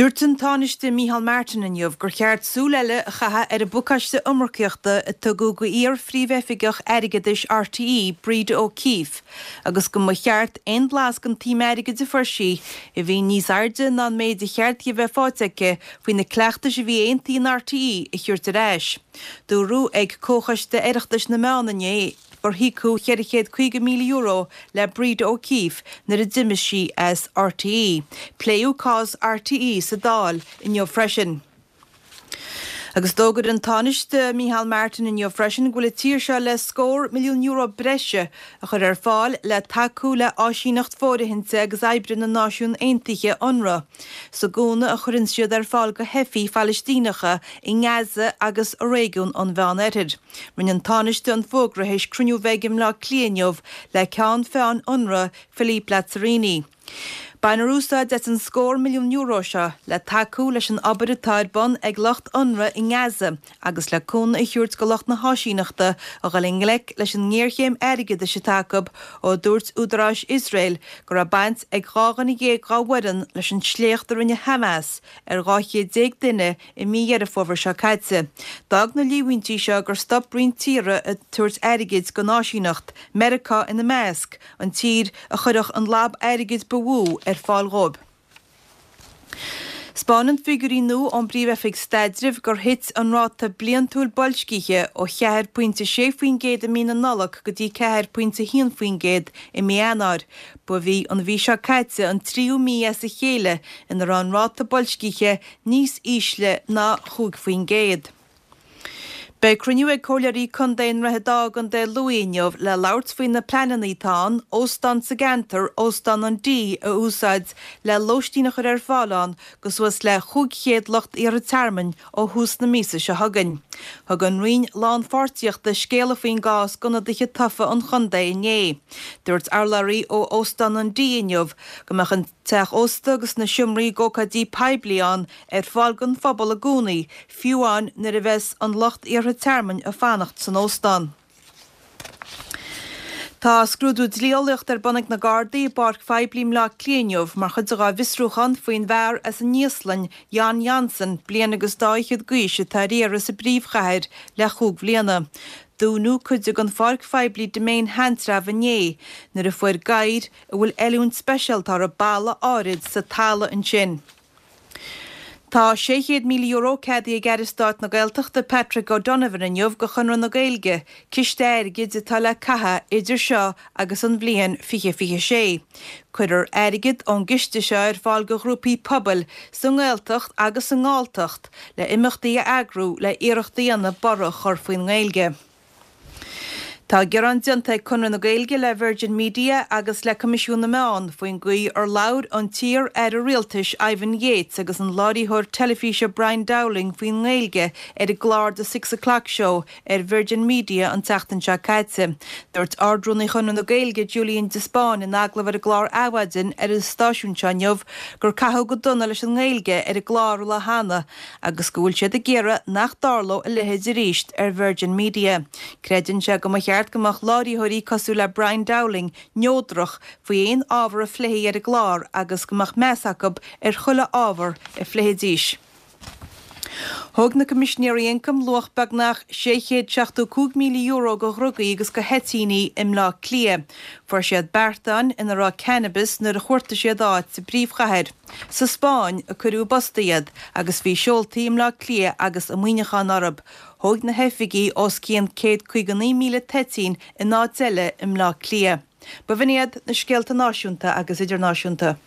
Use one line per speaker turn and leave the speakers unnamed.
Dúirt an Tánaiste Micheál Martin inniu gur cheart súil eile a chaitheamh ar an bpacáiste iomarcaíochta a tugadh go iar-phríomhoifigeach airgeadais RTÉ, Breda O'Keeffe, agus go mba cheart aon blas den tsuim airgid a fuair sí, a bhí níos airde ná an méid a cheart di a bheith faighte aici faoi na cleachtais a bhí aontaithe in RTÉ, a thabhairt ar ais. Dúradh ag Comhchoiste Oireachtais na Meán inné gur híocadh €450,000 le Breda O'Keeffe nuair a d'imigh sí as RTÉ. Pléadh cás RTÉ sa Dáil inniu freisin. Agus d'fhógair an Tánaiste Micheál Martin inniu freisin go bhfuil an tír seo le scór milliún euro breise a chur ar fáil le tacú le áisíneacht fóirithinte agus oibre na Náisiún Aontaithe, Unrwa, sa gcúnamh a chuireann siad ar fáil go theifigh Phalaistíneacha i nGaza agus i réigiún an Mheán-Oirthir. Rinne an Tánaiste an fógra théis cruinniú a bheith aige i mBleá Cliath inniu le ceann feadhain Unrwa, Philippe Lazzarini. Bainfear úsáid as an scór milliún euro seo le tacú leis an obair atá ar bun ag lucht Unrwa i nGaza agus le cúnamh a thabhairt go lucht na háisíneachta a dhul i ngleic leis an ngéarchéim airgeadais atá acu ó dúirt údaráis Iosrael go raibh baint ag 12 dhuine dá bhfoireann leis an sléacht a rinne Hamas ar 12 duine i mí Dheireadh Fómhair seo caite. D'fhág na líomhaintí seo gur stop roinnt tíortha ag tabhairt airgid don áisíneacht, Meiriceá ina measc, an tír a chuirfeadh an lab airgid ba mhó ar fáil dhóibh. 'Spáineann figiúirí nua ón bPríomh-Oifig Staidrimh gur thit an ráta bliantúil boilscithe ó 4.6% i mí na Nollag go dtí 4.1% i mí Eanáir. Ba í an mhí seo caite an tríú mí as a chéile ina raibh an ráta boilscithe níos ísle ná 5%. Beidh cruinniú ag Comhairleoirí Contae i nDroichead Átha i gContae Lú inniu le labhairt faoi na pleananna atá ann óstán sa gceantar, Óstán an D, a úsáid le lóistín a chur ar fáil ann go suas le 500 lucht iarrtha tearmainn ó thús na míosa seo chugainn. Thug an Roinn Lánpháirtíochta scéala faoin gcás d'ionadaithe tofa an chontae inné. Dúirt urlabhraí ó Óstán an D inniu go mbeadh an teach ósta agus na seomraí d'ócáidí poiblí ann ar fáil don phobal i gcónaí, fiú amháin nuair a bheas an lucht iarrtha tearmainn ag fanacht san óstán. Tá scrúdú dlí-eolaíochta ar bun ag na Gardaí i bpáirc phoiblí i mBleá Cliath inniu mar chuid dá bhfiosrúchán faoin bhfear as an Íoslainn, Jon Jonsson, bliain agus dá fhichead d'aois, atá ar iarraidh sa bpríomhchathair le chúig bhliana. Dúnadh cuid den pháirc phoiblí Demesne Sheantrabh inné nuair a fuair gadhair a bhfuil oiliúint speisialta orthu balla áirid sa talamh ansin. Tá €600,000 ceadaithe ag Aire Stáit na Gaeltachta Patrick O'Donovan inniu go Chonradh na Gaeilge, ciste airgid atá le caitheamh idir seo agus an bhliain 2026. Cuirfear airgead ón gciste seo ar fáil go ghrúpaí pobail sa nGaeltacht agus sa nGalltacht le imeachtaí a eagrú le iarracht a dhéanamh borradh a chur faoin nGaeilge. Tá gearán déanta ag Conradh na Gaeilge le Virgin Media agus le Coimisiún na Meán faoin gcaoi ar labhair an t-iar-aire rialtais Ivan Yates agus an láithreoir teilifíse Brian Dowling faoin nGaeilge ar an gclár The Six O'Clock Show ar Virgin Media an tseachtain seo caite. Dúirt Ard-Rúnaí Chonradh na Gaeilge Julian de Spáinn in agallamh ar an gclár Adhmhaidin ar an stáisiún seo inniu gur caitheadh go dona leis an nGaeilge ar an gclár an lá cheana agus go bhfuil siad ag iarraidh nach dtarlódh a leithéid arís ar Virgin Media. Creideann sé go mba cheart go mbeadh láithreoirí cosúil le Brian Dowling neodrach faoi aon ábhar a phléifí ar an gclár agus go mbeadh meas acu ar chuile ábhar a phléifidís. Thóg na Coimisinéirí Ioncaim luach beagnach €675,000 de dhrugaí agus de thoitíní i mBleá Cliath. Fuair siad beartáin ina raibh cannabis nuair a chuartaigh siad áit sa bpríomhchathair. Sa Spáinn a cuireadh i bpost iad agus bhí seoltaí i mBleá Cliath agus i Muineachán orthu. Thóg na hoifigigh os cionn 159,000 toitín in áit eile i mBleá Cliath. B'in iad na scéalta náisiúnta agus idirnáisiúnta.